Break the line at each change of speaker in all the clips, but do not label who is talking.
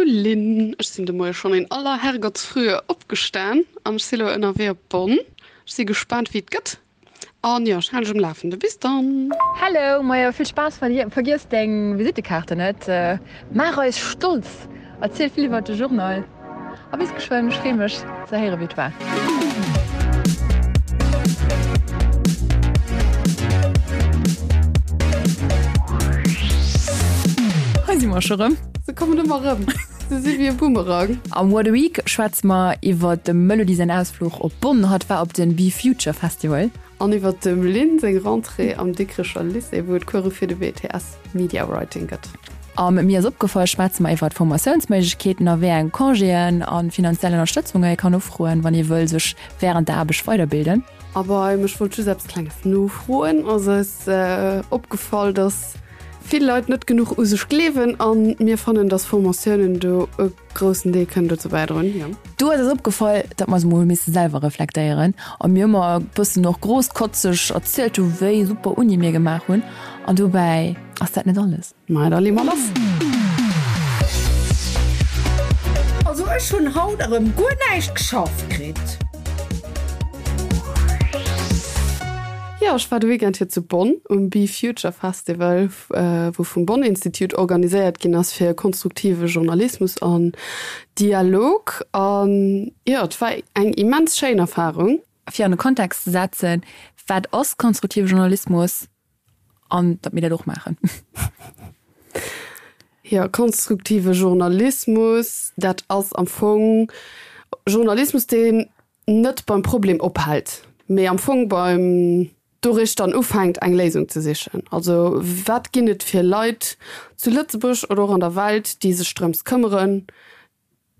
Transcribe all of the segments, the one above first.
Lynn, ech sinn de Moie schonn in aller Herrgottsfrühe opgestan an ech si lo ënnerwee op Bonn. Ech si gespaant wéi et gëtt an jo, ech halen dech um Lafende. Bis dann!
Hello, majo vill Spaass, vergiess deng Visittekaarte net, maach eis stolz, erziel vill iwwert de Journal a bis geschwënn, ech free mech ze héiere wéi et war. Hei si mer scho rëm.
Se kommen ëmmer rëm, se si wéi e Boomerang.
Am What a Week schwätze mer iwwert dem Melody säin Ausfluch op Bonn. Hatt war op den Be Future Festival.
An iwwert dem Lynn seng Rentrée am Dikrecher Lycée, wou et Course fir de BTS Media Writing gëtt.
Am Mir ass opgefall schwätze mer iwwert Formatiounsméiglechkeeten a wéi eng Congéen a finanziell Ënnerstëtzunge ee kann ufroen, wann ee wëll sech wärend der Aarbecht weiderbilden.
A beim Ech wollt just eppes Klenges nofroen ass eis opgefall, dass vill Leit net genuch u sech gleewen a mir fannen, dass Formatiounen do e groussen Deel kënnen dozou bäidroen, jo.
Do ass eis opgefall, datt mer eis emol hu misse selwer reflektéieren a mir ëmmer e bëssen och großkotzeg erzielt hu wéi super Uni mir gemaach hunn an dobäi ass dat net alles.
Maja, da lee mer lass.
Also ech hunn haut erëm guer näischt geschafft kritt.
Jo, ech war de Weekend hier zu Bonn um Be Future Festival, wou vum Bonn Institute organiséiert ginn ass fir konstruktive Journalismus an Dialog. An jo, et war eng immens schéin Erfarung.
Fir an e Kontext ze setzen, wat ass konstruktive Journalismus an datt mir dat och maachen.
Jo, konstruktive Journalismus, dat ass am Fong Journalismus, deen net beim Problem ophält, mee am Fong beim doruecht dann ufänkt, eng Léisung ze sichen. Also wat ginn et fir Leit zu Lëtzebuerg oder och an der Welt, déi sech drëms këmmeren,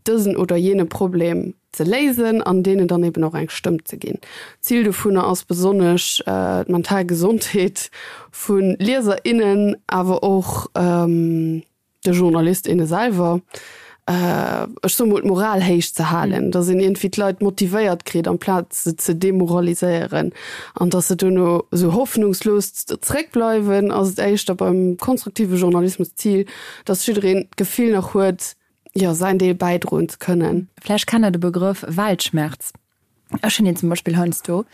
dësen oder jene Problem ze léisen an deenen dann eben och eng Stëmm ze ginn. Zil dovunner ass besonnesch d'mental Gesondheet vu Lieser, innen, awer och de Journalist, inne selwer, ech soe mol d'Moral héich ze halen, datt een iergendwéi d'Leit motivéiert kritt amplaz se ze demoraliséieren an datt se duerno esou hoffnungslos zeréckbleiwen, ass et éischter beim konstruktive Journalismus d'Zil, datt jiddereen d'Gefill nach huet, jo, säin Deel bäidroen ze kënnen.
Vläicht kennt der de Begrëff Weltschmerz. Ech hunn deen zum Beispill heiansdo,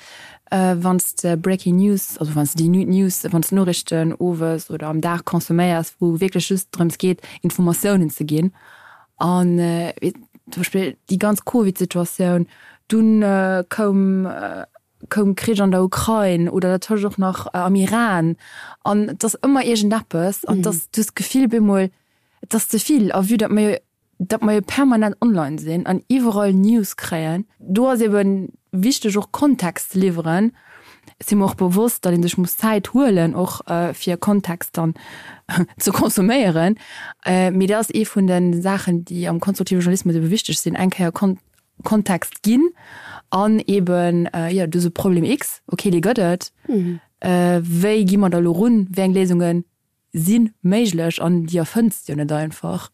wann s de Breaking News, also wann s de déi News, wann s de Noriichten owes oder am Dag consomméiers, wou wierklech just drëms geet, Informatiounen ze ginn. An zum Beispill déi ganz Covid-Situatioun, dunn koum koum Krich an der Ukrain oder dertëscht och nach am Iran. An et ass ëmmer iergendeppes an et ass, du hues d'Gefill bemol, et ass ze vill. A vue datt mer jo, datt mer jo permanent online sinn an iwwerall News kréien, do ass ebe wichteg och Kontext ze liwweren. Ech si mer och bewosst, datt ee sech muss Zäit huelen och fir Kontext dann ze consomméieren. Mee dat ass ee vun de Saachen, déi am konstruktive Journalismus ebe wichteg sinn, eng Kéier Kontext ginn an eben, jo, do ass e Problem X, okay, dee gëtt et, wéi gi mer da elo run, wéi eng Léisunge si méiglech an déi erfënns de jo net einfach.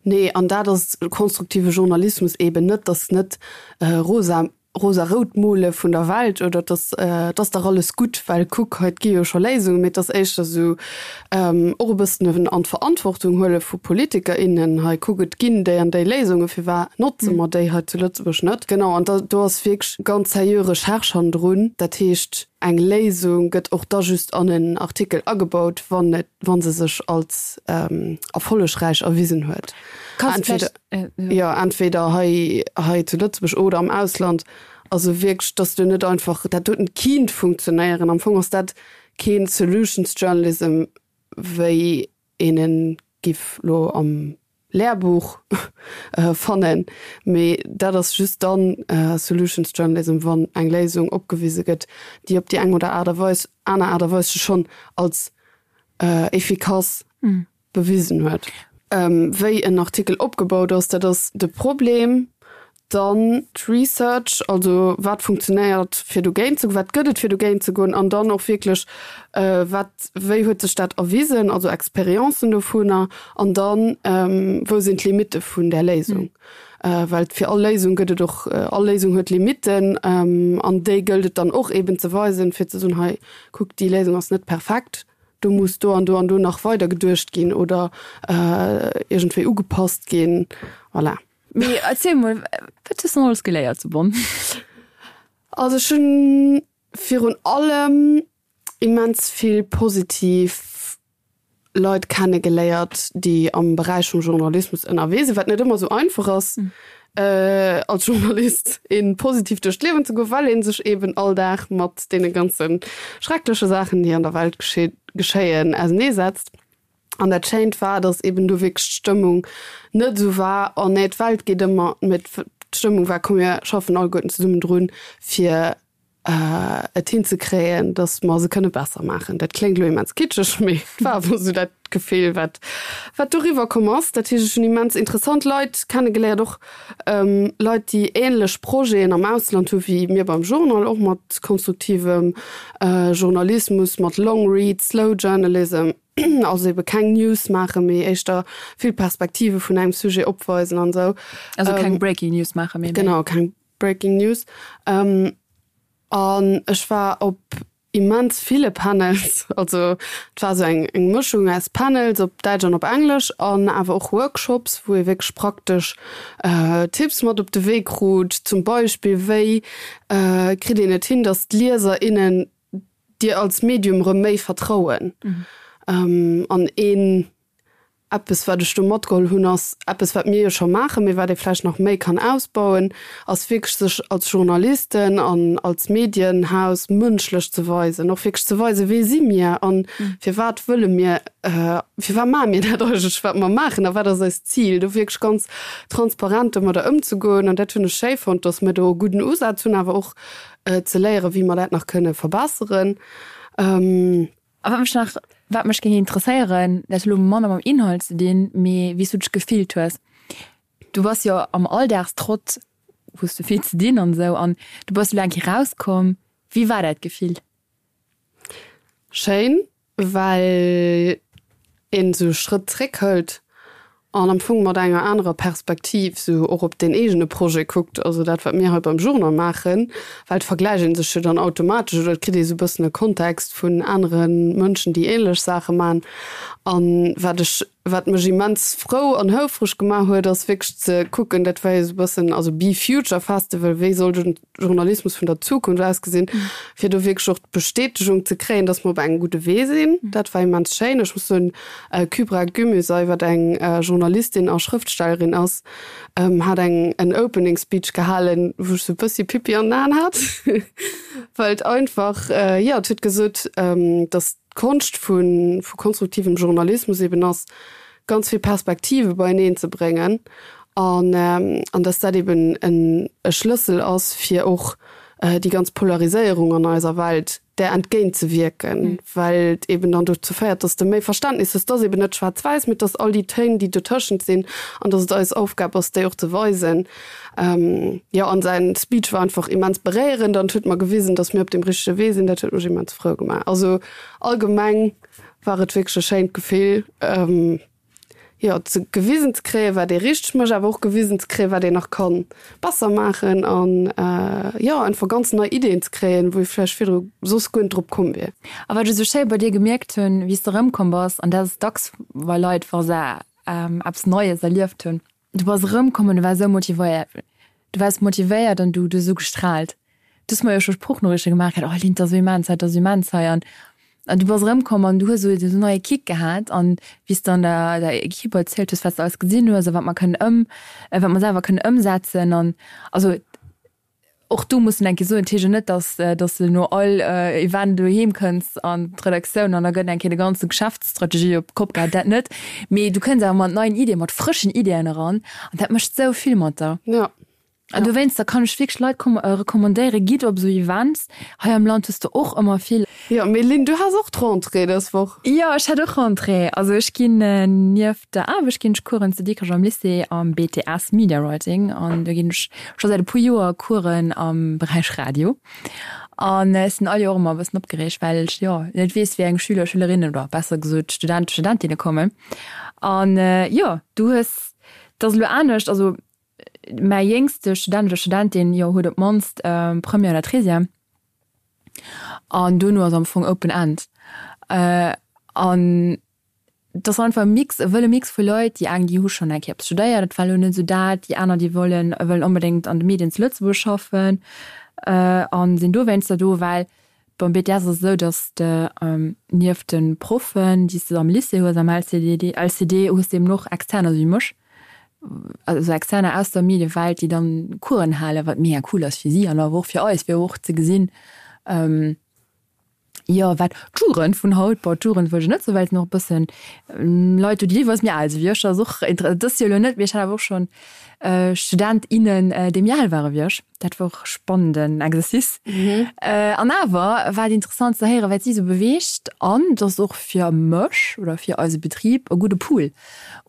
Nee, an dat ass konstruktive Journalismus eben net, dass net rosa rosa-rout mole vun der Welt oder dass et ass dach alles gutt, well kuck, hei et gi jo scho Léisungen, mee et ass éischter esou och e bëssen en an d'Verantwortung huele vu Politiker, innen, hei kuck, et ginn déi an déi Léisungen, firwat notze mer déi hei zu Lëtzebuerg net? Genau, an da do ass wierklech ganz seriö Recherche hannendrun. Dat heescht, eng Léisung gëtt och da just an en Artikel agebaut, wann et, wa se sech als erfollegräich erwisen huet. Entweder, jo, entweder hei, hei zu Lëtzebuerg oder am Ausland. Also wierklech, dass du net einfach, dat doten kinnt funktionéieren. Am Fong ass dat keen Solutions Journalism, wéi een en giff lo am Lehrbuch fannen, mee dat ass just dann Solutions Journalism, wann eng Léisung opgewise gëtt, déi op déi eng oder Aart a Weis, aner Aart a Weis sech schonn als efficace bewisen huet. Wéi en Artikel opgebaut ass, dat ass de Problem. Dann d'Research, also wat funktionéiert fir dogéint ze goen, wat gëtt et fir dogéint ze goen an dann och wierklech wat, wéi huet sech dat erwisen, also Experiencen dovunner an dann wou sinn d'Limitte vun där Léisung. Well fir all Léisung gëtt et och, all Léisung huet Limitten an déi gëllt et dann och eben ze weisen, fir ze soen, hei kuckt déi Léisung ass net perfekt. Do muss do an do an do nach weider geduecht ginn oder iergendwéi ugepasst ginn. Voilà.
Mee erziel mol, wat hues de alles geléiert zu Bonn?
Also ech hunn virun allem immens vill positiv Leit kenne geléiert, déi am Beräich vum Journalismus ënnerwee sinn, wat net ëmmer esou einfach ass als Journalist een positiv duerch d'Liewen ze goen, well ee sech eben all Dag mat deene ganze schreckleche Saachen, déi an der Welt geschéien, auseneesetzt. An dat Schéint war, datt eben do wierklech d'Stëmmung net esou war, oh nee, d'Welt geet ëmmer, mee d'Stëmmung war, komm mir schaffen alleguerten zesummen drun, fir et hinzekréien, datt mer se kënne besser maachen. Dat kléngt elo immens kitscheg, mee et war awer esou dat Gefill, wat, wat doriwwer komm ass. Dat heescht, ech hunn immens interessant Leit kennegeléiert, och Leit, déi änlech Projeten am Ausland hu wéi mir beim Journal, och mat konstruktivem Journalismus, mat Long Read, Slow Journalism, also ebe keng News maachen, mee éischter vill Perspektive vun engem Sujet opweisen an esou.
Also keng Breaking News maachen,
mee méi. Genau, keng Breaking News. An ech war op immens ville Panels, also et war esou eng eng Mëschung aus Panels op Däitsch an op Englesch an awer och Workshops, wou ee wierklech praktesch Tipps mat op de Wee krut, zum Beispill wéi kritt een et hin, datt d'Lieser, innen dir als Medium erëm méi vertrauen. An een Eppes, wat ech do matgeholl hunn, ass eppes, wat mir jo scho maachen, mee wat ee vläicht nach méi kann ausbauen, ass wierklech sech als Journalisten an als Medienhaus mënschlech ze weisen, och wierklech ze weisen, wee si mir a firwat wëlle mir, firwat maache mir dat eigentlech, wat mer maachen a wat ass eist Zil, do wierklech ganz transparent domadder ëmzegoen. An dat hunn ech schéi fonnt, dass mir do e gudden Usaz hunn, awer och ze léieren, wéi mer dat nach kënne verbesseren.
A wat mech nach, wat mech géing interesséieren, dat huet elo manner mam Inhalt ze dinn, mee wéi s du dech gefillt hues. Du bass jo am Alldagstrott, hues du vill ze dinn an esou, an du bass elo eng Kéier rauskomm. Wéi war dat Gefill?
Schéin, well een esou e Schrëtt zréck hëlt an am Fong mat enger anerer Perspektiv sou och op deen eegene Projet kuckt, also dat wat mir hei beim Journal maachen, well et vergläicht ee sech jo dann automatesch oder et kritt ee sou e bëssen e Kontext vun anere Mënschen, déi ähnlech Saache maachen. An wat ech, wat mech immens frou an houfreg gemaach huet, ass wierklech ze kucken, dat war jo sou e bëssen, also Be Future Festival, wéi soll den Journalismus vun der Zukunft ausgesinn, fir do wierklech och d'Bestätegung ze kréien, dass mer op engem gudde Wee sinn. Dat war immens schéin. Ech muss soen, Kübra Gümüsay, wat eng Journalistin a Schrëftstellerin ass, hat eng en Opening Speech gehalen, wou ech sou e bëssi Pipi an den Aen hat, well et einfach, jo, et huet gesot, dass d'Konscht vu konstruktivem Journalismus eben ass, ganz vill Perspektive beieneen ze bréngen an an dass dat eben en e Schlëssel ass, fir och déi ganz Polariséierung an eiser Welt där entgéint ze wierken, well et eben dann dozou féiert, dass de méi Verständnis hues, dass eben net schwaarz-wäiss, mee dass all déi Téin, déi dotëschent sinn, an dass et eis Aufgab ass, déi och ze weisen. Jo, an säin Speech war einfach immens beréierend an et huet mer gewisen, dass mir op deem richtege Wee sinn. Dat huet mech immens frou gemaach. Also allgemeng war et wierklech e schéint Gefill, jo, ze gewisen ze kréien, wat ee richteg mécht, awer och gewisen ze kréien, wat een nach ka besser maachen an, jo, einfach ganz nei Ideeën ze kréien, wou ee vläicht virdru soss guer net drop komm wier.
A wat ech esou schéi bei dir gemierkt hunn, wéi s de erëmkomm bass, an dat ass dacks bei Leit, wa se eppes Neies erlieft hunn, Du bass erëmkomm an du waars esou motivéiert. Du waars motivéiert an du, du hues esou gestraalt. Du hues mer jo scho Sproochnoriichte gemaach gehat, oh Lynn, 't ass esou immens hei, 't ass esou immens hei. An, an du bass erëmkomm an du hues esou esou neie Kick gehat. An wéi s de an der, der Equipe erzielt hues, wat s de alles gesinn hues a wat mer kënnen ëm, wat mer selwer kënnen ëmsetzen an, also Och do muss en eng Kéier soen, et heescht jo net, dass dass de no all Event doheem kënns an d'Redaktioun an da gëtt eng Kéier de ganze Geschäftsstrategie op d'Kopp gehat, dat net. Mee du kënns awer mat neien Iddien, mat frëschen Iddien eran an dat mécht esou vill mat der.
Jo.
An dowéinster kann ech wierklech Leit recommandéieren, gitt op esou Events. Hei am Land hues de och ëmmer vill.
Jo, mee Lynn, du has och d'Rentrée dës Woch.
Jo, ech hat och Rentrée. Also ech ginn nieft der Aarbecht ginn ech Coursen zu Dikrech am Lycée am BTS Media Writing an do ginn ech scho säit e puer Joer Coursen am Beräich Radio. An ech sinn all Joer ëmmer e bëssen opgereegt, well ech jo net weess, wéi eng Schüler, Schülerinnen oder besser gesot Studenten, Studentinne kommen. An jo, du hues, et ass elo anescht, also mäi jéngste Student oder Studentin, jo, huet op d'mannst Première oder Treizième. An duerno ass am Fong open end. An et ass einfach e Mix, e wëlle Mix vu Leit, déi eng, déi hu schonn eng Kéier eppes studéiert, dat war elo net esou dat, déi aner, déi wollen, wëllen onbedéngt an de Medien zu Lëtzebuerg schaffen a sinn dowéinster do, well beim BTS ass et esou, datt s de nieft de Proffen, déi s de am Lycée hues, am LCDD, LCD, hues de eben och Externer, esou wéi mech, also Externer aus der Mediewelt, déi dann Coursen halen, wat mega cool ass fir si an awer och fir eis, fir och ze gesinn, Jo, wat d'Jugend vun haut, bon, d'Jugend wëll ech net soen, well et sinn och e bëssen Leit do, déi deelweis méi al si wéi ech. Dat ass och inter-, dat ass jo elo net, mee ech hat awer och schonn Student, innen, déi méi al ware wéi ech. Dat war och e spannenden Exercice. An awer war et interessant ze héieren, wat si esou beweegt. An et ass och fir mech oder fir eise Betrib e gudde Pool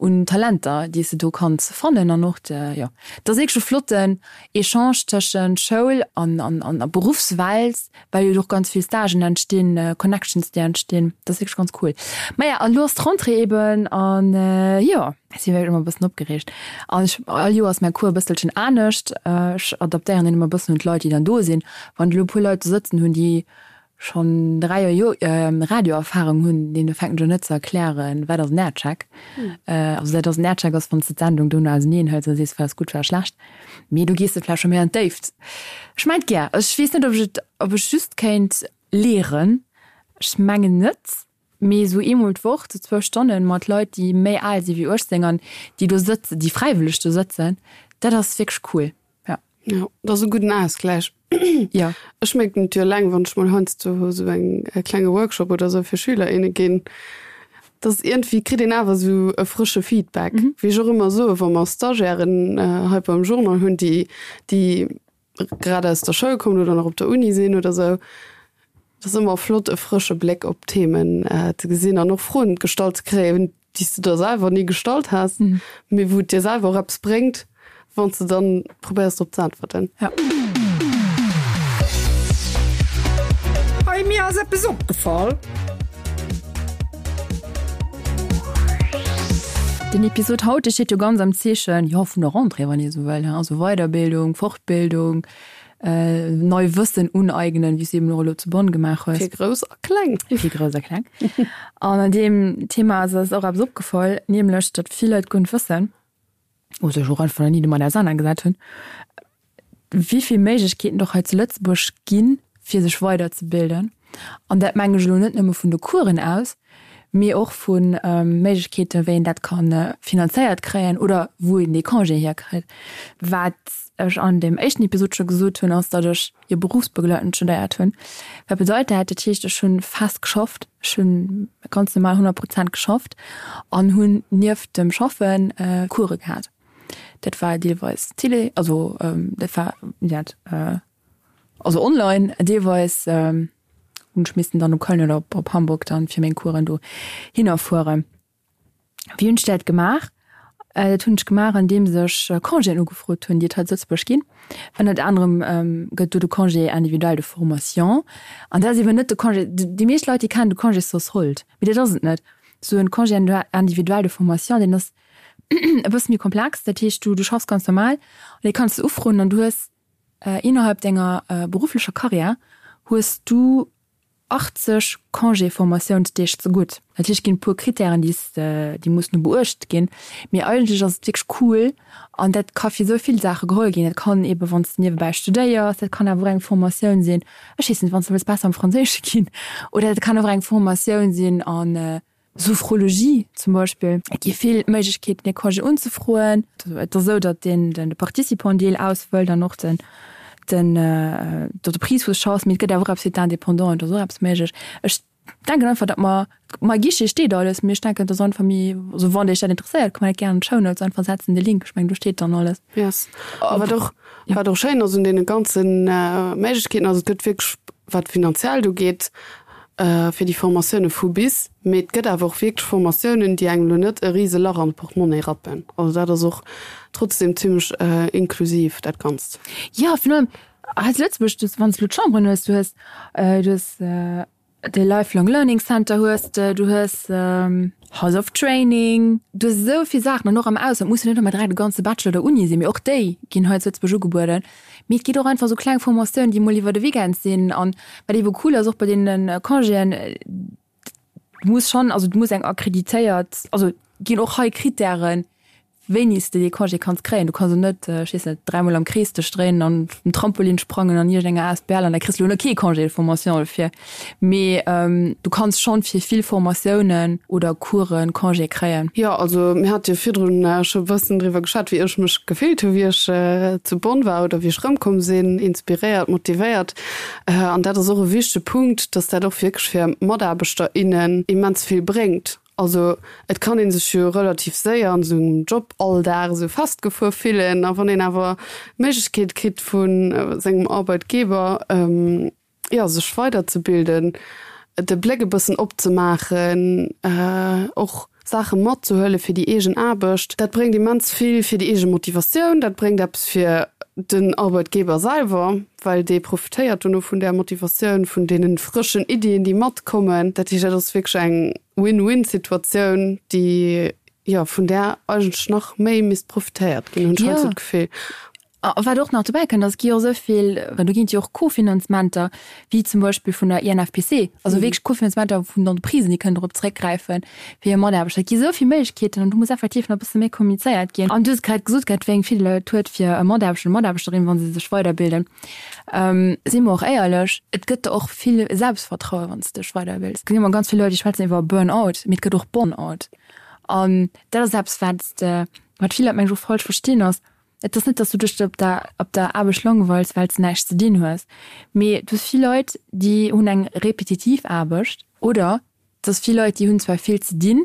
un Talenter, déi s de do kanns fannen. An och de, jo, et ass wierklech e flotten Echange tëschent Schoul an, an, an Beruffswelt. Well jo och ganz vill Stagen entstinn, Connections déi entstinn, dat ass wierklech ganz cool. Maja, an elo ass d'Rentrée eben an jo, ech si wierklech ëmmer e bëssen opgereegt. An ech, all Joer ass mäi Cours e bësselchen anescht, ech adaptéieren deen ëmmer e bëssen un d'Leit déi dann do sinn. Wann ech elo e puer Leit do sëtzen hunn, déi schonn 3 Joer Radioerfarung hunn, deene fänken ech un net ze erklären, wat ass en Aircheck. Also dat ass en Aircheck ass wann s de d'Sendung dono auseneen hëls a sees, wat ass gutt, wat ass schlecht. Mee do gees de vläicht scho méi an d'Déift. Ech mengt gär. Ech weess net, ob ech et, ob ech just kéint lehren. Ech mengen net. Mee esou eemol d'Woch, sou zwou Stonnen mat Leit, déi méi al si wéi 18 an déi do sëtzen, déi fräiwëlleg do sëtzen, dat ass wierklech cool.
Ja. Jo, dat ass e gudden Ausgläich.
Jo.
Ech mierken et jo eleng, wann ech mol heiansdo esou eng e klenge Workshop oder esou fir Schüler, inne ginn, dass iergendwéi kritt een awer esou e frësche Feedback. Wéi ech och ëmmer soen, wa mer Stagiairen hei beim Journal hunn, déi déi grad aus der Schoul kommen oder nach op der Uni sinn oder esou, et ass ëmmer flott e frësche Bléck op d'Themen ze gesinn an och Froen gestallt ze kréien, déi s de der selwer ni gestallt has, mee wou et dir selwer och eppes bréngt, wann s de dann probéiers drop ze äntwerten.
Ja.
Hey, mir ass eppes opgefall.
Den Episod haut, dee steet jo ganz am Zeechen, jo, vun der Rentrée, wann ee sou wëll, also Weiderbildung, Fortbildung, Nei Wëssen uneignen, wéi s du eben och elo zu Bonn gemaach hues.
Fir Grouss a Kleng.
Fir Grouss a Kleng. An an deem Thema ass eis och eppes opgefall, nämlech datt vill Leit guer net wëssen, oder sech och einfach nach ni domat ausernanergesat hunn, wéi vill Méiglechkeeten et och hei zu Lëtzebuerg ginn, fir sech weiderzebilden. An dat mengen ech elo net nëmme vun de Coursen aus, mee och vu Méiglechkeeten, wéi een dat ka finanzéiert kréien oder wou een dee Congé hierkritt. Wat ech an deem éischten Episod scho gesot hunn, ass, datt ech jo berufsbegleitend studéiert hunn. Wat bedeit dat? Dat heescht, ech hu fest geschafft, ech hu ganz normal 100 Prozent geschafft an hunn nieft dem Schaffen Course gehat. Dat war deelweis Télé, also dat war, wéi dat, Also online, deelweis hunn ech missten dann op Köln oder op Hamburg dann fir meng Coursen do hinner fueren. Wéi hunn ech dat gemaach? Dat hunn ech gemaach andeems ech Congéen ugefrot hunn, déi et hei zu Lëtzebuerg ginn. Ënnert anerem gëtt do de Congé individuel de formation. An dat ass eeben net de Congé, déi meescht Leit déi kennen de Congé sans solde, mee dat ass et net. Esou en Congé individuel de formation, deen ass e bësse méi komplex. Dat heescht du du schaffs ganz normal an dee kanns de ufroen an du hues Innerhalb denger berufflecher Karriär hues du 80 Congé-Formatiounsdeeg zegutt. Natierlech ginn et e puer Krittären, déi s déi mussen do beuecht ginn, mee eigentlech ass et wierklech cool an dat ka fir esou vill Saache geholl ginn. Dat kann eebe wann s de niewebäi studéiers, dat kann awer och eng Formatioun sinn, ech weess net, wann s de wëlls besser am Franséische ginn oder dat kann och eng Formatioun sinn an Sophrologie zum Beispill. Et gi vill Méiglechkeeten, dee Congé unzefroen. Et ass esou, datt deen de Participant-Deel ausfëllt an och den den d'Entreprise wou s schaffs. Mee et gëtt awer och eppes fir d'Indépendanten, do ass och eppes méiglech. Ech denken einfach, datt mer, ma Guichet steet alles, mee ech denken, et ass einfach méi, also wann Iech dat interesséiert, ka mer dat gär an d'Shownotes einfach setzen, de Link. Ech mengen, do steet dann alles.
Yes. A wat och, wat och schéin ass un deene ganze Méiglechkeeten ass, et gëtt wierklech, wat finanziell do geet, fir déi Formatioune vu bis, mee et gëtt awer och wierklech Formatiounen, déi engem elo net e rise Lach an d'Portmonnaie rappen. Also dat ass och trotzdem zimmlech inklusiv, dat Ganzt.
Jo, virun allem hei zu Lëtzebuerg, du, wann s de elo d'Chamberen hues, du hues, du hues de Lifelong Learning Center hues de, du hues House of Training, du hues esou vill Saachen an och am Ausland muss jo net ëmmer direkt e ganze Bachelor oder Uni sinn, mee och déi ginn hei zu Lëtzebuerg ugebueden. Mee et geet och einfach esou kleng Formatiounen, déi mol iwwer de Weekend sinn. An wat eebe cool ass och bei deene Congéen, Du muss schonn, also du muss eng akkreditéiert, also ginn och hei Krittären, wéini s de dee Congé kanns kréien. Du kanns elo net, ech weess net, dräimol am Krees dech dréinen an um Trampolin sprangen an iergendenger Asbl an da kriss de elo net kee Congé de formation dofir. Mee du kanns schonn fir vill Formatiounen oder Coursen Congé kréien.
Jo, also mir hate jo virdrun scho e bëssen driwwer geschwat, wéi ech mech gefillt hu wéi ech zu Bonn war oder wéi ech erëmkomm sinn, inspiréiert, motivéiert. An dat ass och e wichtege Punkt, dass dat och wierklech fir Mataarbechter, innen immens vill bréngt. Also et kann ee sech jo relativ séier an esou engem Joballdag esou festgefuer fillen. A wann een awer d'Méiglechkeet kritt vu sengem Arbeitgeber, jo, sech weiderzebilden, de Bléck e bëssen opzemaachen, och Saache matzehuele fir déi eegen Aarbecht, dat bréngt immens vill fir déi eege Motivatioun, dat bréngt eppes fir den Arbeitgeber selwer, well dee profitéiert dono vun där Motivatioun, vun deene frëschen Iddien, déi matkommen. Dat heescht, dat ass wierklech eng Win-win-Situatioun, déi, jo, vun där eigentlech nach méi misst profitéiert ginn, hunn ech heiansdo d'Gefill.
A wat och nach dobäi kënnt, ass, et gi jo och esou vill, well do ginn et jo och Kofinanzementer, wéi zum Beispill vun der INFPC, also wierklech Kofinanzementer vun Entreprisen, déi kënnen dorop zréckgräifen, fir hir Mataarbechter. Et gi esou vill Méiglechkeeten an do muss effektiv nach e bësse méi kommunizéiert ginn. An du hues grad gesot gehat, wéi eng Virdeeler et huet fir e Mataarbechter oder Mataarbechterin, wa se sech weiderbilden. Si mer och éierlech, et gëtt der och vill Selbstvertrauen, wann s de dech weiderbils. Et ginn ëmmer ganz vill Leit, déi schwätzen iwwer Burnout, mee et gëtt och Bonnout. An dat ass eppes, wat de, wat vill Leit, mengen ech, och falsch verstinn, ass, Et ass net, dass du dech op der op der Aarbecht langweils, well s de näischt ze dinn hues, mee du hues vill Leit, déi hunn eng repetitiv Aarbecht oder et ass vill Leit, déi hunn zwar vill ze dinn,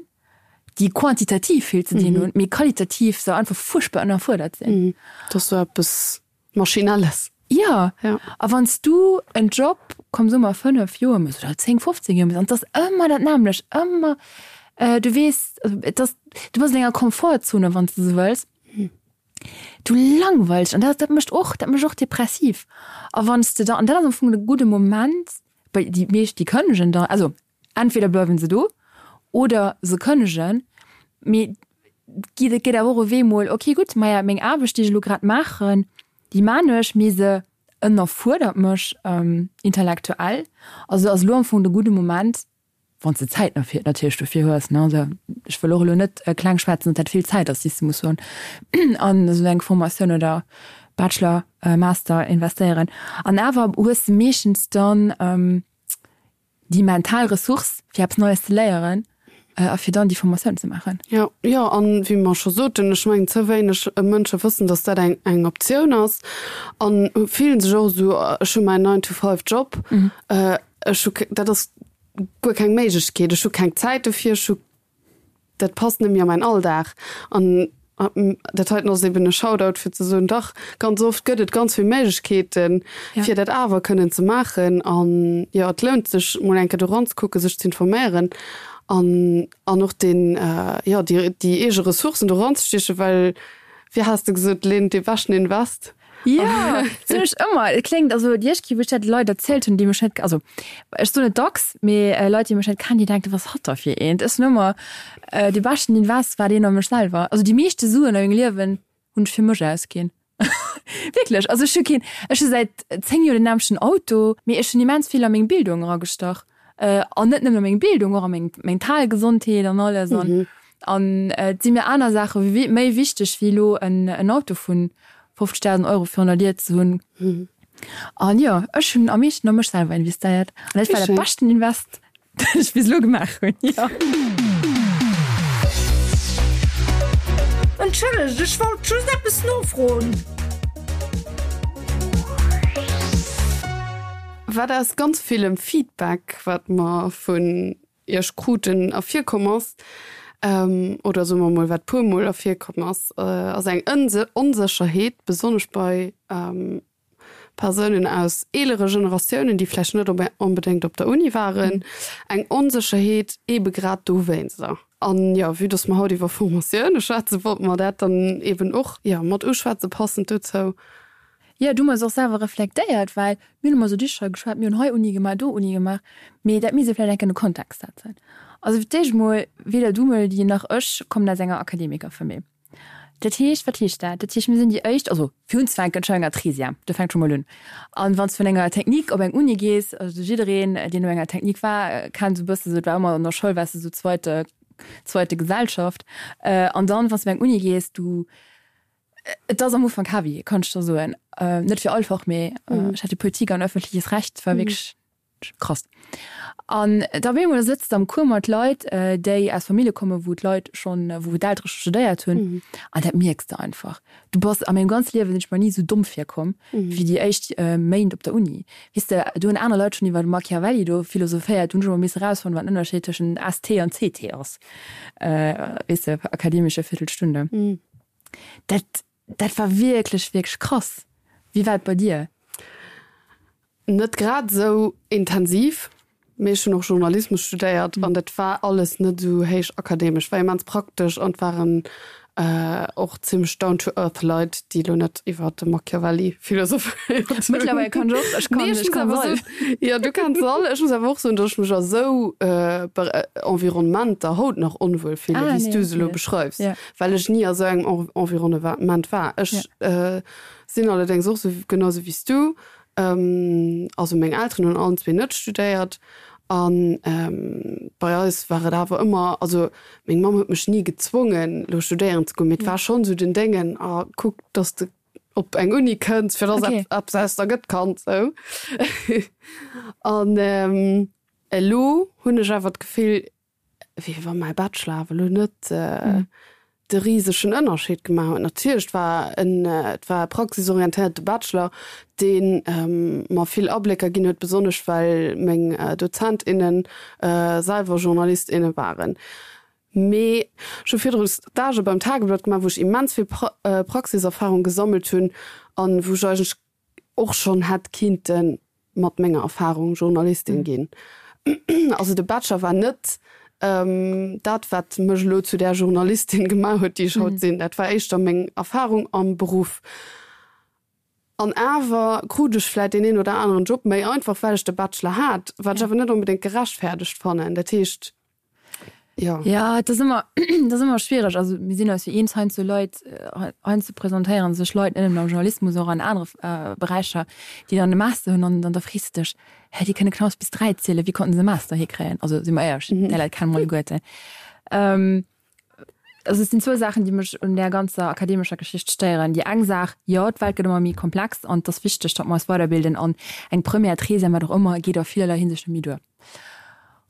déi quantitativ vill ze dinn hunn, mee qualitativ se einfach fuerchtbar ënnerfuerdert sinn.
Et ass sou eppes Maschinelles.
Jo, a wann s du en Job, komm soe mer 5 Joer méchs oder 10, 15 Joer méchs an et ass ëmmer dat nämmlecht, ëmmer, du weess, et ass, du bass an enger Komfortzone, wann s de sou wëlls. Du langweilst an dat, dat mécht och, dat mécht och depressiv. A wann s de da, an dat ass am Fong de gudde Moment, well déi meescht, déi kënnegen da, also entweder bleiwen se do oder se kënnegen, mee et geet awer och e Wee mol, okay gutt, maja meng Aarbecht, déi ech elo grad maachen, déi maan ech, mee se ënnerfuerdert mech intellektuell. Also ass elo am Fong de gudde Moment, Wann s de Zäit natierlech dofir hues, ne. Also ech wëll och elo net kleng schwätzen, datt dat vill Zäit ass, déi s de muss hunn an esou eng Formatioun oder Bachelor, Master investéieren. An awer hues de meeschtens dann déi mental Ressource, fir eppes Neies ze léieren a fir dann déi Formatioun ze maachen.
Jo, jo, an wéi mer scho soten, ech mengen, ze wéineg Mënsche wëssen, datt dat eng eng Optioun ass an fillen sech och esou, ech hu mäin Nine-to-five-Job, Ech hu, dat ass guer keng Méiglechkeet, ech hu keng Zäit dofir, ech hu, dat passt net méi a mäin Alldag. An dat heiten ass eben e Shoutout fir ze soen, dach, ganz oft gëtt et ganz vill Méiglechkeeten, fir dat awer kënnen ze maachen. An jo, et lount sech mol eng Kéier do eranzekucken, sech ze informéieren an an och deen, jo, déi déi eege Ressourcen do eranzestiechen, well, wéi has de gesot, Lynn, dee beschten Invest
Jo, soen ech ëmmer. Et kléngt, also déi éischt Kéier, wou ech dat de Leit erzielt hunn, déi mech net, also ech soen et dacks, mee Leit, déi mech net kennen, déi denken, wat ass hatt da fir eent? Ech soen ëmmer, de beschten Invest war deen a mech selwer. Also déi meeschte Suen a mengem Liewen hunn ech fir mech ausginn. Wierklech, also ech hu keen, ech hu säit 10 Joer den nämmlechten Auto, mee ech hunn immens vill a meng Bildung eragestach. An net nëmmen a meng Bildung, och a meng mental Gesondheet an alles. An an et si mir aner Saache méi wichteg wéi elo en Auto vu 50.000 Euro virun der Dier ze hunn. An jo, ech hunn am meeschten a mech selwer investéiert. An dat war dat beschten Invest, dat ech bis elo gemaach hunn, jo.
Entschëllegt, ech wollt just eppes nofroen.
Wat aus ganz villem Feedback, wat mer vun Iech kruten, ervirkomm ass, oder soe mer mol, wat puermol ervirkomm ass, ass eng Onsécherheet, besonnesch bei Persounen aus eelere Generatiounen, déi vläicht net onbedéngt op der Uni waren, eng Onsécherheet eebe grad dowéinster. An jo, vue dass mer haut iwwer Formatioune schwätzen, wollte mer dat dann eeben och, jo, mat uschwätzen, passend dozou.
Jo, du hues och selwer reflektéiert, well mir hunn ëmmer esou Dicher geschwat, mir hunn hei Uni gemaach, do Uni gemaach, mee dat misst ee vläicht eng Kéier an de Kontext setzen. Also fir d'éischt emol, weder du Melody nach ech kommen aus enger Akademikerfamill. Dat heescht, wat heescht dat? Dat heescht, mir sinn déi éischt, also fir unzefänken, ech war enger Trésième, do fänkt scho mol un. An wann s de vun enger Technique op eng Uni gees, also jiddereen, deen op enger Technique war, kennt esou e bësse sou, et war ëmmer an der Schoul waars de sou zweite, zweite Gesellschaft. An dann, wann s de op eng Uni gees, du, et ass am Ufank heavy, kann ech der soen. Net fir all Fach, mee ech hat jo Politik an öffentliches Recht, war wierklech Krass. An da op eemol sëtzt de am Cours mat Leit, déi aus Famillje kommen, wou d'Leit schonn, wou d'Eltere scho studéiert hunn. An dat mierks de einfach. Du bass, a mengem ganze Liewe sinn ech mer ni esou domm virkomm wéi déi éischt Méint op der Uni. Weess de, do hunn aner Leit schonn iwwer Machiavelli do philosophéiert, do hunn ech emol misse erausfannen, wat den Ënnerscheed tëschent ST an CT ass. Weess de, akademische Viertelstunde. Dat, dat war wierklech, wierklech krass. Wéi war et bei dir?
Net grad esou intensiv, mee ech hunn och Journalismus studéiert an dat war alles net esou héich akademesch, war immens praktesch an et waren och zimmlech down to earth Leit, déi elo net iwwer de Machiavelli philosophéiert hunn.
Mëttlerweil kann ech och, ech kann, ech kann se all.
Jo, du kanns se all. Ech muss awer och soen, datt ech mech a sou Environnementer haut nach onwuel fillen, wéi s du se elo beschreifs, well ech ni a sou engem Environnement war. Ech sinn allerdéngs och sou, genau sou wéi s du, Also meng Elteren hunn allen zwee net studéiert an bei eis war et awer ëmmer, also meng Mamm huet mech ni gezwongen lo studéieren ze goen, mee et war schonn esou den Déngen, ah kuck dass de op eng Uni kënns fir dass eppes aus der gëtt Kand sou. An elo hunn ech awer d'Gefill, wéi wa mäi Bachelor awer elo net de risegen Ënnerscheed gemaach huet. Natierlech, et war en, et war e praxisorientéierte Bachelor, dee mer vill Ablécker ginn huet, besonnesch well meng Dozent, innen selwer Journalist, inne waren. Mee ech hu virdru Stagë beim Tageblatt gemaach, wou ech immens vill Praxiserfarung gesammelt hunn an wou ech eigentlech och schonn hätt kinnte mat menger Erfahrung Journalistin ginn. Also de Bachelor war net dat, wat mech elo zu där Journalistin gemaach huet, déi ech haut sinn. Dat war éischter meng Erfahrung am Beruff. An awer krut ech vläit deen een oder aneren Job méi einfach, well ech de Bachelor hat, wat ech awer net onbedéngt gerechtfäerdegt fannen. Dat heescht,
Jo. Ja, et ass ëmmer, et ass ëmmer schwiereg. Also mir sinn eis jo eens, heiansdo Leit, heiansdo presentéiere sech Leit net nëmmen am Journalismus, och an anere Beräicher, déi dann e Master hunn an dann da frees de dech, Hä, déi kënne knapps bis 3 zielen, wéi konnten se e Master hikréien? Also si mer éierlech, déi Leit kenne mer alleguerten. Also et sinn zwou Saachen, déi mech un där ganzer akademescher Geschicht stéieren. Déi eng Saach, jo, d'Welt gëtt ëmmer méi komplex an et ass wichteg, datt mer eis weiderbilden an eng Première, Treizième, wat och ëmmer, geet a villerlei Hinsicht net méi duer.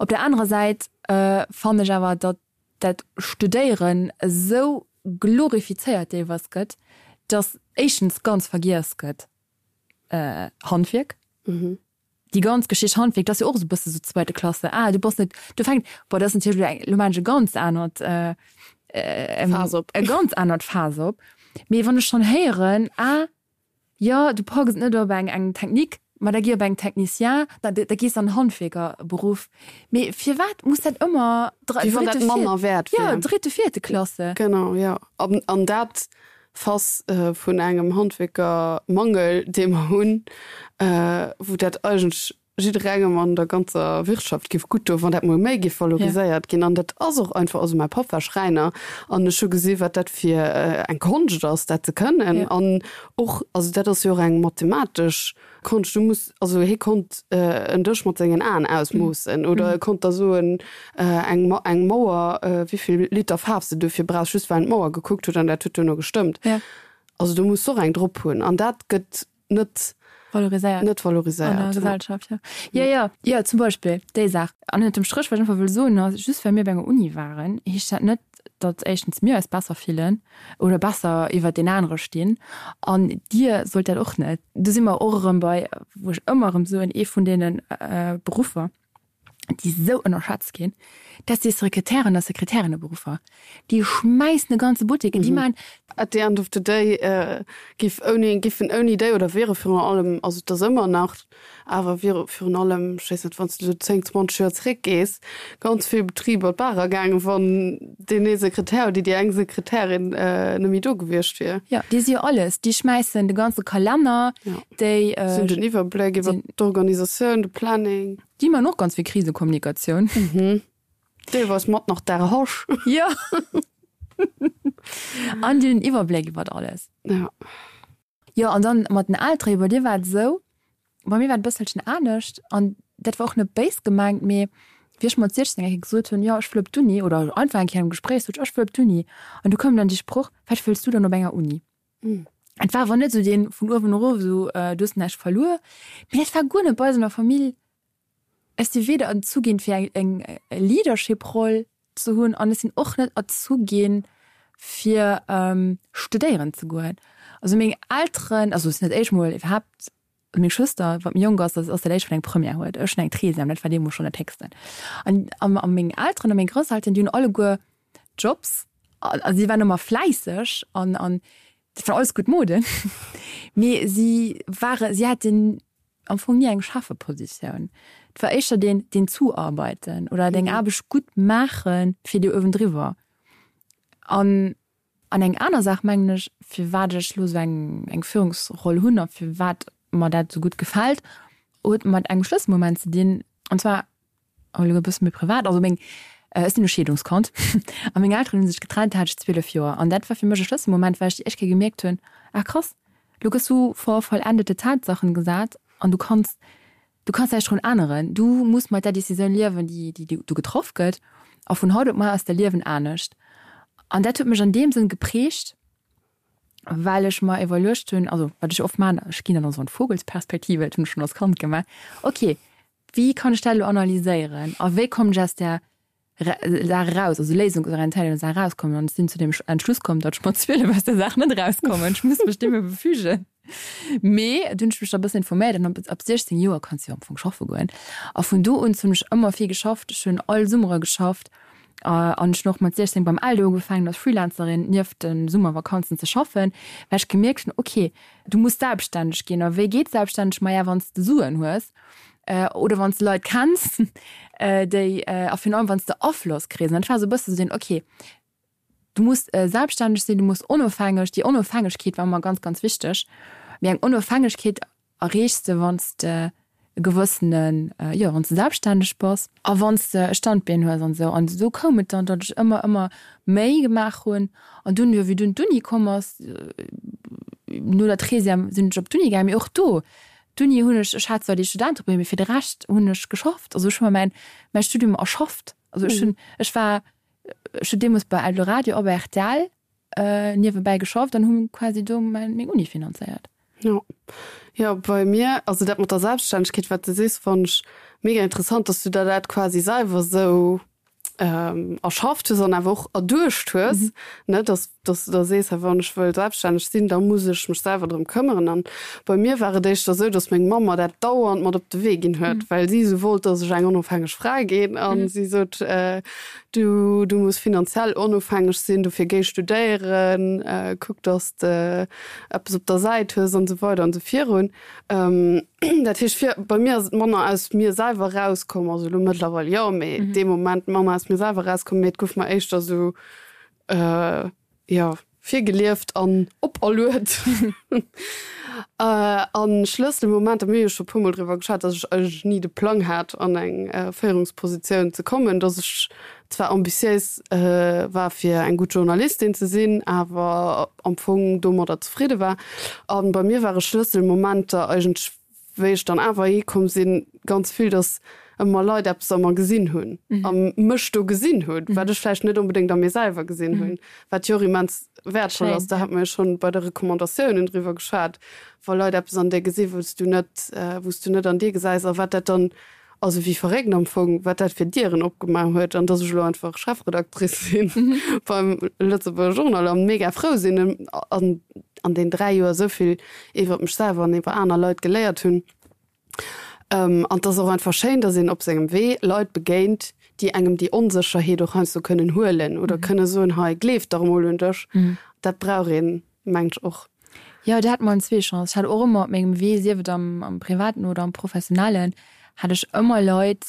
Op der anerer Säit fannen ech awer, datt dat Studéieren esou glorifizéiert deelweis gëtt, datt éischtens ganz vergiess gëtt Handwierk, déi ganz Geschicht Handwierk, dat ass jo och esou e bësse sou zweite Klasse, ah du bass net, do fänkt, bon dat ass natierlech elo eng, elo maachen ech e ganz anert
Faass op,
e ganz anert Faass op, mee wann ech schonn héieren, ah Jo, du packs et net op eng eng Technique, ma da gi op eng Technicien, da da gees an Handwierkerberuff. Mee firwat muss dat ëmmer
dr Wéi wann dat dritte, manner
viert, wäert jo, wär. dritte, vierte Klasse?
Genau, jo. An an dat Fass vun engem Handwierkermangel, dee mer hunn, wou dat eigentlech jidderengem an der ganzer Wirtschaft giff gutt doen, wann dat mol méi giff valoriséiert ginn. An dat ass och einfach, also mäi Papp war Schräiner an ech hu gesi wat dat fir eng Konscht ass, dat ze kënnen. An och, also dat ass jo och eng mathematesch Konscht, du muss, also hie konnt en Dësch mat sengen Aen ausmoossen oder e konnt der soen, eng eng Mauer, wéivill Liter Faarf s de duerfir brauchs, just well en d'Mauer gekuckt huet an dat huet duerno gestëmmt. Also do muss s de och eng drop hunn an dat gëtt net
valoriséiert
net valoriséiert
an der Gesellschaft ja. Ja ja ja zum Beispill déi Saach an ënnert dem Stréch wat ech einfach wëll soen ass just well mir op enger Uni waren heescht dat net datt éischtens mir eis besser fillen oder besser iwwert deen anere stinn an dir sollt dat och net. Do si mer och erëm bei wou ech ëmmer erëm soen ee vun deene Beruffer déi esou ënnerschätzt ginn, dat si Sekretären a Sekretärinneberuffer. Déi schmäissen e ganze Buttek, déi maachen.
At the end of the day giff ouni, giffen ouni déi oder wiere virun allem, also et ass ëmmer nach, awer wiere virun allem, ech weess net, wann s de esou 10, 20 Joer zeréckgees, ganz vill Betriber d'Baach ergaangen, wann deen ee Sekretär oder déi eng Sekretärin net méi do gewiescht wier.
Jo, déi si jo alles. Déi schmäissen de ganze Kalenner, déi.
Si hunn den Iwwerbléck iwwer d'Organisatioun, de Planning.
Déi man och ganz vill Krisekommunikatioun.
Mhm. Deelweis mat nach der Hasch.
Jo. An déi hunn den Iwwerbléck iwwert alles.
Ja.
Jo, an dann mat den Eltere, bei dir war et esou, bei mir war et e bësselchen anescht an dat war och net béis gemengt, mee wéi ech mat 16 eng Kéier gesot hunn, jo ech wëll op d'Uni oder einfach eng Kéier am Gespréich sot ech, ech wëll op d'Uni an du koum dann dee Sproch, wat wëlls du dann op enger Uni? Et war awer net esou dee vun uewen erof esou, du hues näischt verluer, mee dat war guer net bei eis an der Famill. Ech si weder erzu ginn, fir eng Leadership-Roll ze hunn an ech sinn och net erzu ginn, fir studéieren ze goen. Also meng Elteren, also et sinn dat éischt Mol iwwerhaapt, meng Schwëster, wat méi jonk ass, ass dat éischt wat eng Première huet. Ech hunn eng Treizième, dat war deemools schonn dat Héchsten. An a meng Elteren a meng Grousselteren, déi hunn alleguer Jobs a si waren ëmmer fläisseg an an dat war alles gutt Moden, mee si ware si haten am Fong ni eng Chefepositioun. Et war éischter deen deen Zuarbeiten oder deng Aarbecht gutt maache fir déi uewendriwwer. An an eng aner Saach mengen ech, firwat ech elo esou eng eng Führungsroll hunn a firwat mer dat esou gutt gefält, huet mat engem Schlësselmoment ze dinn, an zwar elo e bësse méi privat, also meng, ech sinn e Scheedungskand a meng Elteren hu sech getrennt, da hat ech 12 Joer an dat war fir mech e Schlësselmoment, well ech déi éischt Kéier gemierkt hunn, ah krass, elo gëss du vor vollendete Tatsachen gesat an du kanns, du kanns näischt drun änneren, du muss mat där Decisioun liewen, déi, déi do getraff gëtt a vun haut op mar ass däi Liewen anescht. An dat huet mech an deem Sënn geprägt, well ech mer iwwerluecht hunn, also wat ech oft maachen, ech ginn dann esou an d'Vogelsperspektive, dat hunn ech schonn als Kand gemaach, okay, Wéi kann ech dat elo analyséieren a wéi kommen ech aus där Saach eraus, also léisungsorientéiert aus der Saach erauskommen? An ech sinn zu dem Entschluss komm, datt ech mat 12 aus der Saach net erauskommen. Ech muss mech deem befügen. Mee dunn hunn ech mech da e bëssen informéiert an ab 16 Joer kanns du jo am Fong schaffe goen. A vun do un hunn ech ëmmer vill geschafft. Ech hunn all Summere geschafft an ech hunn och mat 16 beim Eldo ugefaangen als Freelancerin nieft de Summervakanzen ze schaffen, well ech gemierkt hunn, okay, du muss selbststänneg ginn. A wéi geet selbststänneg? Maja, wann s de Suen hues. Oder wann s de Leit kenns, déi, a virun allem wann s de Afloss kriss. An dat war esou e bësse sou deen, okay, du muss selbststänneg sinn, du muss onofhängeg, déi Onofhängegkeet war ëmmer ganz, ganz wichteg. Mee eng Onofhängegkeet erreechs de, wann s de e gewëssenen, jo, wann s de selbststänneg bass a wann s de e Standbeen hues an esou. An esou koum et dann, datt ech ëmmer, ëmmer méi gemaach hunn. An dunn, jo, wéi dunn d'Uni komm ass, no der Treizième sinn ech op d'Uni gaangen, mee och do, D'Uni hunn ech, ech hat zwar déi Studenteprime, mee fir de Rescht hunn ech geschafft. Also ech hu mer mäin, mäi Studium erschafft. Also ech hunn, ech war, ech hunn deemools bei Eldoradio a bei rtl niewebäi geschafft an hu quasi do mäin, meng Uni finanzéiert.
Jo, jo, bei mir, also dat mat der Selbststännegkeet, wat de sees, fannen ech mega interessant, dass du der dat quasi selwer esou erschafft hues an awer och erduecht hues, mhm. ne, dass, dass du da sees, wann ech wëll selbststänneg sinn, da muss ech mech selwer drëm këmmeren. An bei mir war et éischter esou, dass meng Mamm mer dat dauernd mat op de Wee ginn huet, mhm. well si esou wollt, dass ech eng onofhängeg Fra ginn. An mhm. si sot, äh, du, du muss finanziell onofhängeg sinn, dofir géi studéieren, äh, kuck, dass de eppes op der Säit hues an esou weider an esou virun. Dat heescht fir bei mir ass et manner aus mir selwer rauskomm, also elo mëttlerweil jo, mee mm -hmm. dee Moment manner aus mir selwer rauskomm, mee et gouf mer éischter sou äh, jo virgelieft an operluet. äh, an Schlësselmomenter, mir hu jo scho puermol driwwer geschwat, dass ech eigentlech ni de Plang hat an eng äh, Féierungspositioun ze kommen, dass ech zwar ambitiéis war fir eng gutt Journalistin ze sinn, awer am Fong domadder zefridde war. A bei mir ware Schlësselmomenter eigentlech, wéi ech dann awer hikomm sinn, ganz vill, datt ëmmer Leit eppes a mer gesinn hunn a mech do gesinn hunn, wat ech vläicht net onbedéngt a mir selwer gesinn hunn, wat jo och immens wäertvoll ass. Da hate mer jo schonn bei de Recommandatiounen driwwer geschwat, wa Leit eppes an dir gesinn, wou s du net, wou s du net an dir gesäis a wat dat dann Also wéi verréckt am Fong, wat dat fir Dieren opgemaach huet an dass ech elo einfach Chefredactrice sinn beim Lëtzebuerger Journal an mega frou sinn an an den 3 Joer esou vill iwwert mech selwer an iwwer aner Leit geléiert hunn. An et ass och einfach schéin, dass een op sengem Wee Leit begéint, déi engem déi Onsécherheet och heiansdo kënnen huelen oder kënne soen, hei gleef dach emol un dech. Dat brauch een mengt ech och.
Jo, do hat mer en zwee Chance. Ech hat och ëmmer op mengem Wee, sief et am, am Privaten oder am Professionellen, hat ech ëmmer Leit.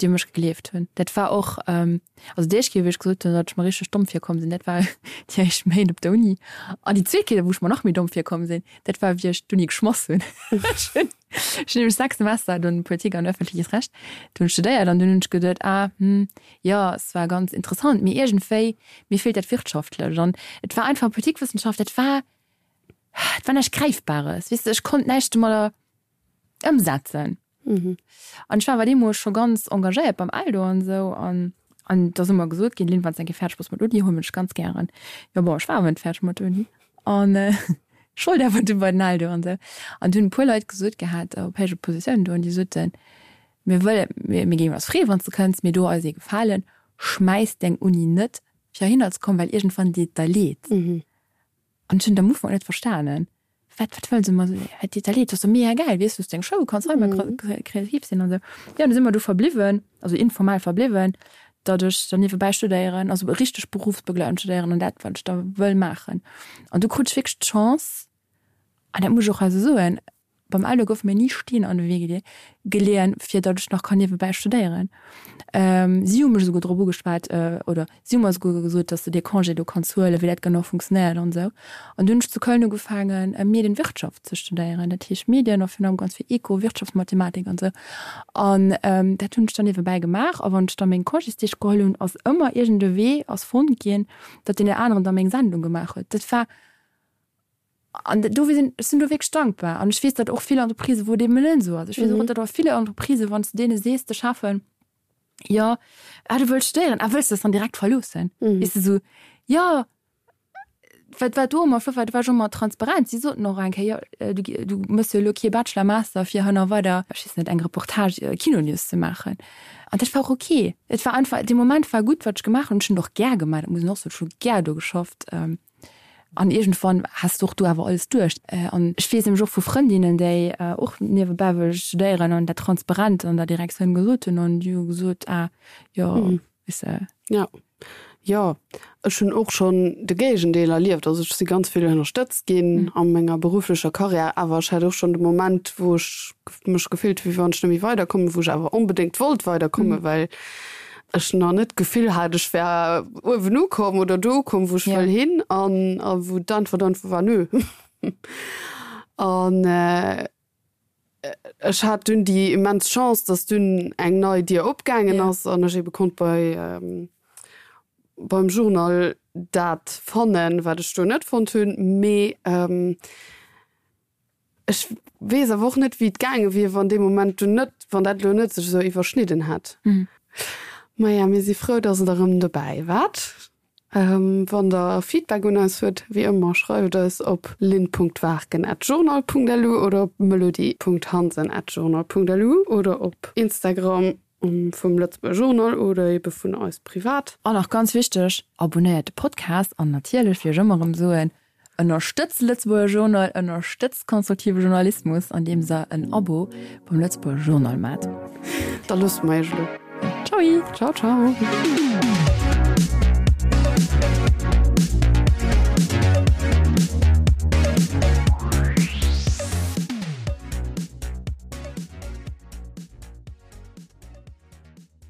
Déi u mech gegleeft hunn. Dat war och, also déi éischt Kéier, wéi ech gesot hunn, datt ech mer richteg domm virkomm sinn, dat war déi éischt Méint op der Uni. An déi zweet Kéier, wou ech mer nach méi domm virkomm sinn, dat war, wéi ech d'Uni geschmoss hunn. Ech hunn ech hunn nämlech 6 Semester dunn Politik an öffentliches Recht dunn studéiert an dunn hunn ech geduet, ah, hm, jo, es war ganz interessant, mee iergendwéi, mir feelt dat Wirtschaftlecht. An et war einfach Politikwëssenschaft, dat war, et war näischt Gräifbares, weess de, ech konnt näischt domadder ëmsetzen. An ech war awer deemools scho ganz engagéiert beim Eldo an esou an an et ass ëmmer gesot ginn, Lynn, wann s de eng Kéier fäerdeg bass mat Uni, huel mech ganz gären. Jo bon, ech war awer net fäerdeg mat Uni an ech wollt awer du bei den Eldo an esou. An du hunn e puer Leit gesot gehat op héije Positiounen do an déi soten, mir wëllen, mir mir géingen eis freeën, wann s de kënns, mee do eis ee Gefalen, schmäiss deng Uni net fir heihinner ze kommen, well iergendwann deet et der leed. An ech hunn et am Ufank net verstanen. Wat, wat wëll se mer soen? Wat deet der leed? Dat ass doch mega gäil, weess du, hues deng Show, kanns hei mol kreativ sinn an esou. Jo, an du si mer do verbliwwen, also informell verbliwwen, datt ech dann niewebäi studéieren, also richteg berufsbegleitend studéieren an dat, wat ech da wëll maachen. An du krut ech wierklech d'Chance, an dat muss ech och hei esou soen, Beim Eldo goufe mir ni Steen an de Wee geleeën, fir datt ech nach kann niewebäi studéieren. Si hu mech esouguer drop ugeschwat, oder si hu mer esouguer gesot, datt s de dee Congé do kanns huelen, wéi dat genau funktionéiert an esou. An dunn hunn ech zu Köln ugefaangen, Medienwirtschaft ze studéieren. Dat heescht Medien a virun allem ganz vill Eco, Wirtschaftsmathematik an esou. An dat hunn ech dann niewebäi gemaach. A wann ech da meng Congésdeeg geholl hunn, ass ëmmer iergend e Wee ass fonnt ginn, datt deen aneren da meng Sendung gemaach huet. Dat war. An do sinn, ech sinn do wierklech dankbar. An ech weess, datt och vill Entreprisen, wou et eben net esou ass. Ech weess och, datt a ville Entreprisen, wann s de deene sees, de Cheffen, jo, ah du wëlls studéieren, ah wëlls de dat dann direkt verloossen? Weess de, esou, jo, wat war do ëmmer flott war, do war ech ëmmer transparent. Si soten och eng Kéier, jo, du, du méchs jo elo kee Bachelor, Master, fir hënner weider, ech weess net, eng Reportage, Kinonews ze maachen. An dat war och ok. Et war einfach, dee Moment war gutt, wat ech gemaach hunn. Ech hunn et och gär gemaach, dat muss een och soen, ech hu gär do geschafft. An iergendwann has de och do awer alles duerch. An ech weess nämlech och vu Frëndinnen, déi och niewebäi wëlle studéieren an dat transparent an der Direktioun gesot hunn an déi hu gesot, ah jo, weess de.
Jo, jo, ech hunn och schonn de Géigendeel erlieft. Also ech si ganz vill ënnerstëtzt ginn a menger berufflecher Karriär, awer ech hat och schonn de Moment, wou ech mech gefillt hu wéi wann ech net méi weiderkommen, wou ech awer onbedéngt wollt weiderkommen, well ech nach net d'Gefill hat, ech wär uewen ukomm oder do ukomm, wou ech wëll hin an a wou d'Äntwert einfach war, nö. An ech hat dunn déi immens Chance, datt dunn eng nei Dier opgaangen ass an ech ebe konnt bei beim Journal dat fannen, wat ech do net fonnt hunn. Mee Ech weess awer och net, wéi et gaange wier, wann dee Moment dunn net, wann dat elo net sech esou iwwerschnidden hätt. Maja, mir si frou, dass Der erëm dobäi waart. Wann Der Feedback un eis huet, wéi ëmmer, schreift eis op lynn.waarken@journal.lu oder op melody.hansen@journal.lu oder op Instagram vum Lëtzebuerger Journal oder ebe vun eis privat.
An nach ganz wichteg, Abonnéiert de Podcast an natierlech, wéi ech ëmmer erëm soen, ënnerstëtzt de Lëtzebuerger Journal, ënnerstëtzt konstruktive Journalismus, andeems der en Abo beim Lëtzebuerger Journal maacht.
Da loosse mer iech elo.
Tschaui!
Ciao, ciao!